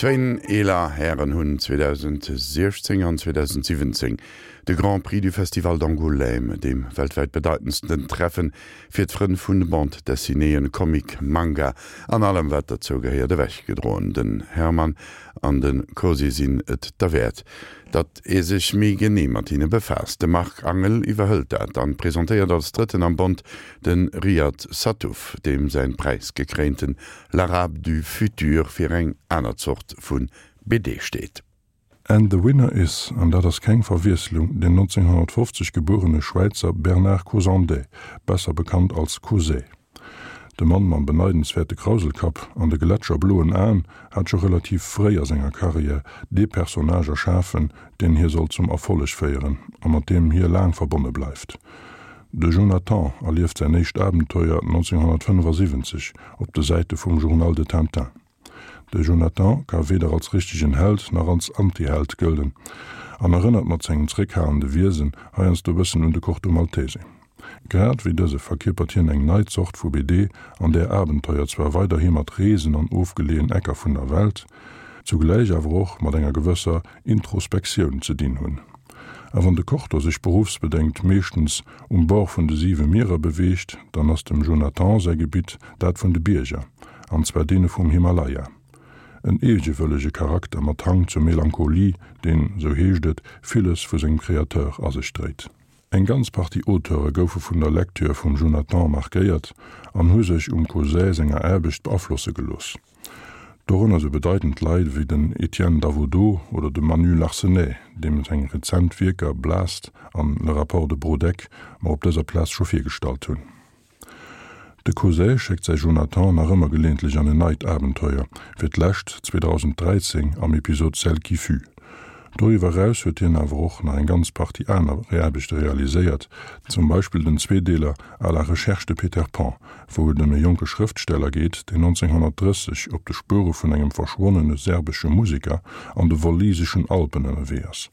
Zwéin eeler Hären hunn 2016 an 2017 de Grand Prix du Festival d'Angoulême, deem weltwäit bedeitendsten Treffen fir d'Frënn vun Bande Dessinéeën, Comic, Manga an allem wat derzou gehéiert, ewechgedroen. Den Hermann an de Cosi sinn et derwäert, datt ee sech méi genee mat hinne befaasst. De Marc Angel iwwerhëlt dat an presentéiert als Drëtten am Bond de Riad Sattouf, deem säin präisgekréinten L'Arabe du futur fir eng aner Zort vu BD steet. And the winner is, an dat ass keng Verwiesslung, den 1950 gebuerene Schwäizer Bernard Cosandey, besser bekannt als Cosey. De Mann mam beneidenswäerte Krauselkapp an de gletscherbloen Aen hat scho relativ fréi a senger Karriär dee Personnage erschafen, deen hie sollt zum Erfolleg féieren a mat deem hie laang verbonne bleift. De Jonathan erlieft säin éischt Abenteuer 1975 op de Säite vum Journal de Tintin. De Jonathan ka weder als richtegen Held nach als Antiheld gëllen an erënnert mat sengem zréckhalende Wiesen heiansdo e bëssen un de Corto Maltese. Grad wéi dëse verkierpert hien eng nei Zort vu BD, an där Abenteuer zwar weiderhi mat Reesen an ofgeleeën Ecker vun der Welt, zugläich awer och mat enger gewësser Introspektioun ze dinn hunn. A wann de Corto sech beruffsbedéngt meeschtens um Bord vun de siwe Mierer beweegt, dann ass dem Jonathan säi Gebitt dat vun de Bierger, an zwar deene vum Himalaya. En eegewëllege Charakter mat Hang zur Melancholie, deen, sou heescht et, villes vu sengem Créateur a sech dréit. Eng ganz Partie Auteure goufe vun der Lecture vum Jonathan markéiert an hu sech um Cosey senger Aarbecht beaflosse gelooss. Dorënner sou bedeitend Leit ewéi den Etienne Davodeau oder de Manu Larsenet, deem seng rezent Wierker Blast an Le rapport de Brodeck mer op dëser Plaz scho virgestallt hunn. De Cosey schéckt säi Jonathan nach ëmmer geleeëntlech an en neit Abenteuer, fir d'lescht 2013 am Episod Celle qui fut. Doriwwer eraus huet hien awer och nach eng ganz Partie aner Aarbechte realiséiert, zum Beispill den Zweedeeler À la recherche de Peter Pan, wou et ëm e jonke Schrëftsteller geet, deen 1930 op de Spuere vun engem verschwonnene serbesche Museker an de walliseschen Alpen ënnerwee ass.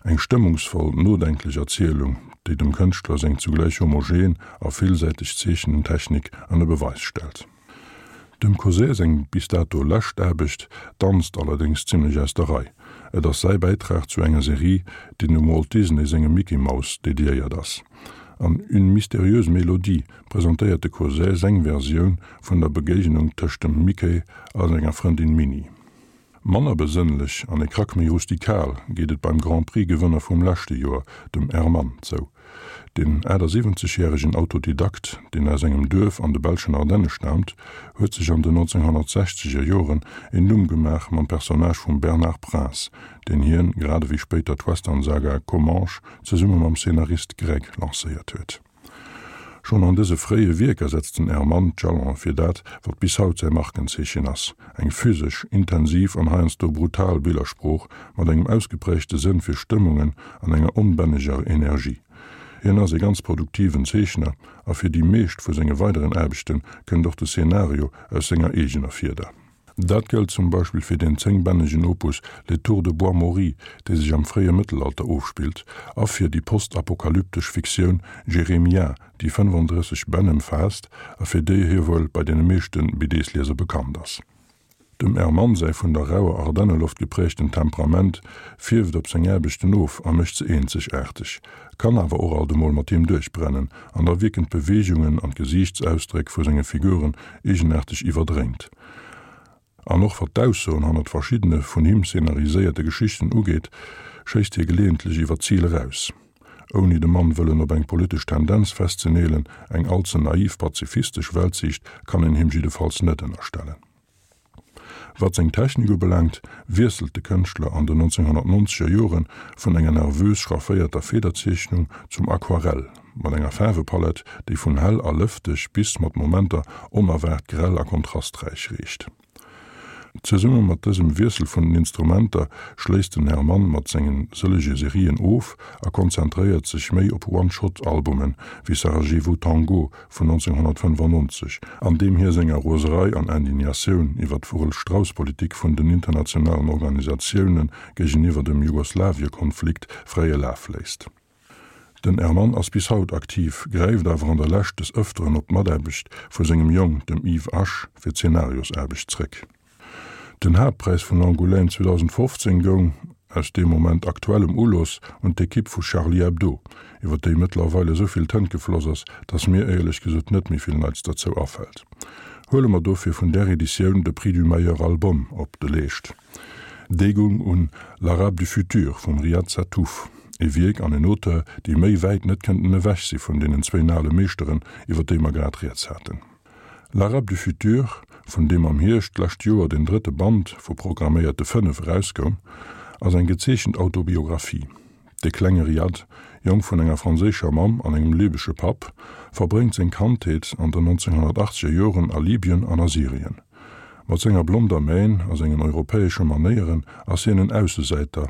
Eng stëmmungsvoll, nodenklech Erzielung, déi dem Kënschtler seng zugläich homogen a villsäiteg Zeechnentechnik ënner Beweis stellt. Dem Cosey seng bis dato lescht Aarbecht danzt allerdéngs zimmlech aus der Rei. Et ass säi Bäitrag zu enger Serie, déi dem Walt Disney sengem Mickey Mouse dediéiert ass. An Une mystérieuse mélodie presentéiert de Cosey seng Versioun vun der Begéignung tëscht dem Mickey a senger Frëndin Minnie. Manner besënnlech an e Krack méi rustikal geet et beim Grand Prix Gewënner vum leschte Joer, dem Hermann, zou. Den 78 järegen Autodidakt, deen aus engem Duerf an de belschen Ardenne staamt, huet sech an den 1960er Joren een Numm gemaach mam Personnage vum Bernard Prince, deen hien, grad ewéi spéider d'Western-Saga Comanche, zesumme mam Szenarist Greg lancéiert huet. Schonn an dëse fréie Wierker setzt den Hermann d'Jalone fir dat, wat bis haut säi Markenzeechen ass, eng physesch, intensiv an heiansdo brutal Billersprooch mat engem ausgeprägte Sënn fir Stëmmungen an enger onbänneger Energie. Hien ass ee ganz produktiven Zeechner a fir déi meescht vu senge weideren Aarbechte kënnt och de Szenario aus senger eegener Fieder. Dat gëllt zum Beispill fir den zéngbännegen Opus Les Tours de Bois-Maury, dee sech am fréie Mëttelalter ofspillt, a fir déi postapokalyptesch Fiktioun Jeremia, déi 35 Bänn ëmfaasst a fir déi hie wuel bei deene meeschte BDs-Lieser bekannt ass. Dem Hermann säi vun der rauer Ardenneloft gepräägten Temperament fierft op seng Aarbechten of a mécht se eenzegaarteg, kann awer och alt emol mat him duerchbrennen an da wierken d'Beweegungen an d'Gesiichtsausdréck vu senge Figuren eegenaarteg iwwerdréint. An och wat d'Aussoen hannert verschiddene vun him szenariséierte Geschichten ugeet, schéisst hie geleeëntlech iwwer d'Zil eraus. Ouni de Mann wëllen op eng politesch Tendenz festzeneelen, eng all ze naiv pazifistesch Weltsiicht kann een him jiddefalls net ënnerstellen. Wat seng Technik ubelaangt, wiesselt de Kënschtler an den 1990er Jore vun enger nervös schrafféierter Federzeechnung zum Aquarell, mat enger Faarwepalett, déi vun hell a lëfteg bis mat Momenter onerwaart grell a kontrasträich reecht. Zesumme mat dësem Wiessel vun den Instrumenter schléisst den Hermann mat senge sëllege Serien of a konzentréiert sech méi op One-Shot-Albumen, wéi Sarajevo Tango vun 1995, an deem hie senger Roserei an Indignatioun iwwer d'Vogel-Strauss-Politik vun den internationalen Organisatioune géigeniwwer dem Jugoslawiekonflikt fräie Laf léisst. Den Hermann ass bis haut aktiv, gräift awer an der Lescht des Ëfteren op d'Mataarbecht vu sengem Jong, dem Yves Asch, fir d'Zenariosaarbecht zréck. Den Haaptpräis vun Angoulême 2015 goung, aus dee Moment aktuellem Ulooss, un d'Ekipp vu Charlie Hebdo, iwwer déi mëttlerweil esou vill Tënt gefloss ass, datt mir éierlech gesot net méi vill Neits derzou afält. Huele mer dofir vun där Editioun de Prix du meilleur album op de Leescht. Dee goung un L'Arabe du futur vum Riad Sattouf, e Wierk an en Auteur, déi méi wäit net kënnten ewech si vun deenen zwéin ale Meeschteren, iwwer déi mer grad rieds haten. L'Arabe du futur, vun deem am Hierscht d'lescht Joer den drëtte Band vu programméierte 5 erauskoum, ass eng gezeechent Autobiographie. De klenge Riad, Jong vun enger franséischer Mamm an engem libesche Papp, verbréngt seng Kandheet an den 1980er Joren a Libyen an a Syrien. Mat senger blonder Mähn a sengen europäesche Manéieren ass hien en Aussesäiter,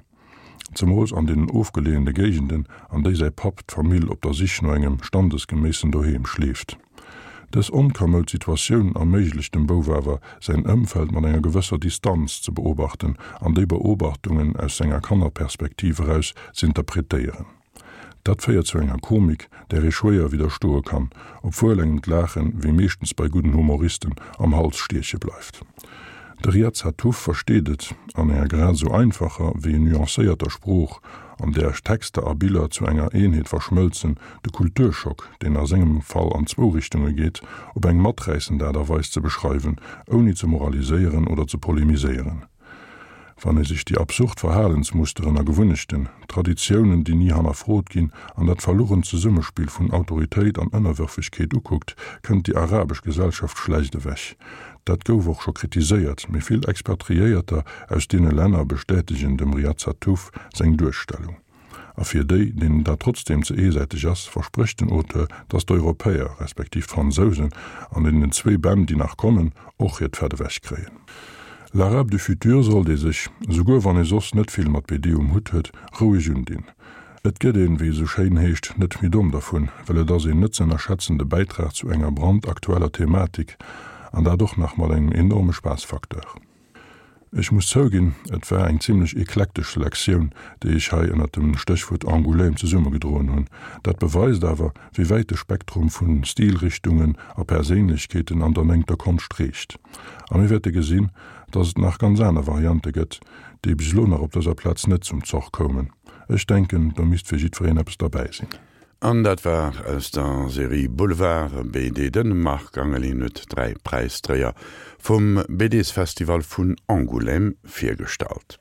zemools an deenen ofgeleeëne Géigenden, an déi säi Papp d'Famill op der Sich no engem standesgeméissen Doheem schleeft. Dës onkamoud Situatioun erméiglecht dem Bouf awer, säin Ëmfeld mat enger gewësser Distanz ze beobachten an déi Beobachtungen aus senger Kannerperspektiv eraus z'interpretéieren. Dat féiert zu enger Komik, där ee schwéier widderstoe kann, obwuel engem d'Laachen, wéi meeschtens bei gudden Humoristen, am Hals stieche bleift. De Riad Sattouf versteet et, an enger grad esou einfacher wéi nuancéierter Sprooch, an där Texter a Biller zu enger Eenheet verschmëlzen, de Kulturschock, deen a sengem Fall an zwou Richtunge geet, op eng maträissend Aart a Weis ze beschreiwen, ouni ze moraliséieren oder ze polemiséieren. Wann ee sech déi absurd Verhalensmusteren a Gewunnechten, Traditiounen, déi ni hannerfrot ginn, an dat verlugent Zesummespill vun Autoritéit an Ënnerwërfegkeet ukuckt, kënnt déi arabesch Gesellschaft schlecht ewech. Dat gouf och scho kritiséiert, mee vill Expatriéierter aus deene Länner bestätegen dem Riad Sattouf seng Duerstellung. A fir déi, deenen dat trotzdeem ze eesäiteg ass, versprécht den Auteur, datt d'Europäer, respektiv d'Fransousen, an deenen zwéi Bänn, déi nach kommen, och hiert Fett ewech kréien. L'Arabe du futur sollt ee sech, esouguer wann ee soss net vill mat BD um Hutt huet, roueg undinn. Et gëtt een, wéi et esou schéin heescht, net méi domm dervun, well et ass een net ze ënnerschätzende Bäitrag zu enger brandaktueller Thematik, an dat och nach mat engem enorme Spaassfacteur. Ech muss zouginn, et war eng zimlech eklektesch Selektioun, déi ech hei ënnert dem Stéchwuert Angoulême zesummegedroen hunn. Dat beweist awer, wéi wäit de Spektrum vu Stilrichtungen a Perséinlechkeeten an der néngter Konscht reecht. A mir wäerte gesinn, dass et nach ganz aner Variante gëtt, déi bis elo nach op dëser Plaz net zum Zoch koumen. Ech denken, do misst fir jiddwereen eppes derbäi sinn. An dat war aus der Serie Boulevard BD. De Marc Angelin huet 3 Präisdréier vum BDsfestival vun Angoulême virgestallt.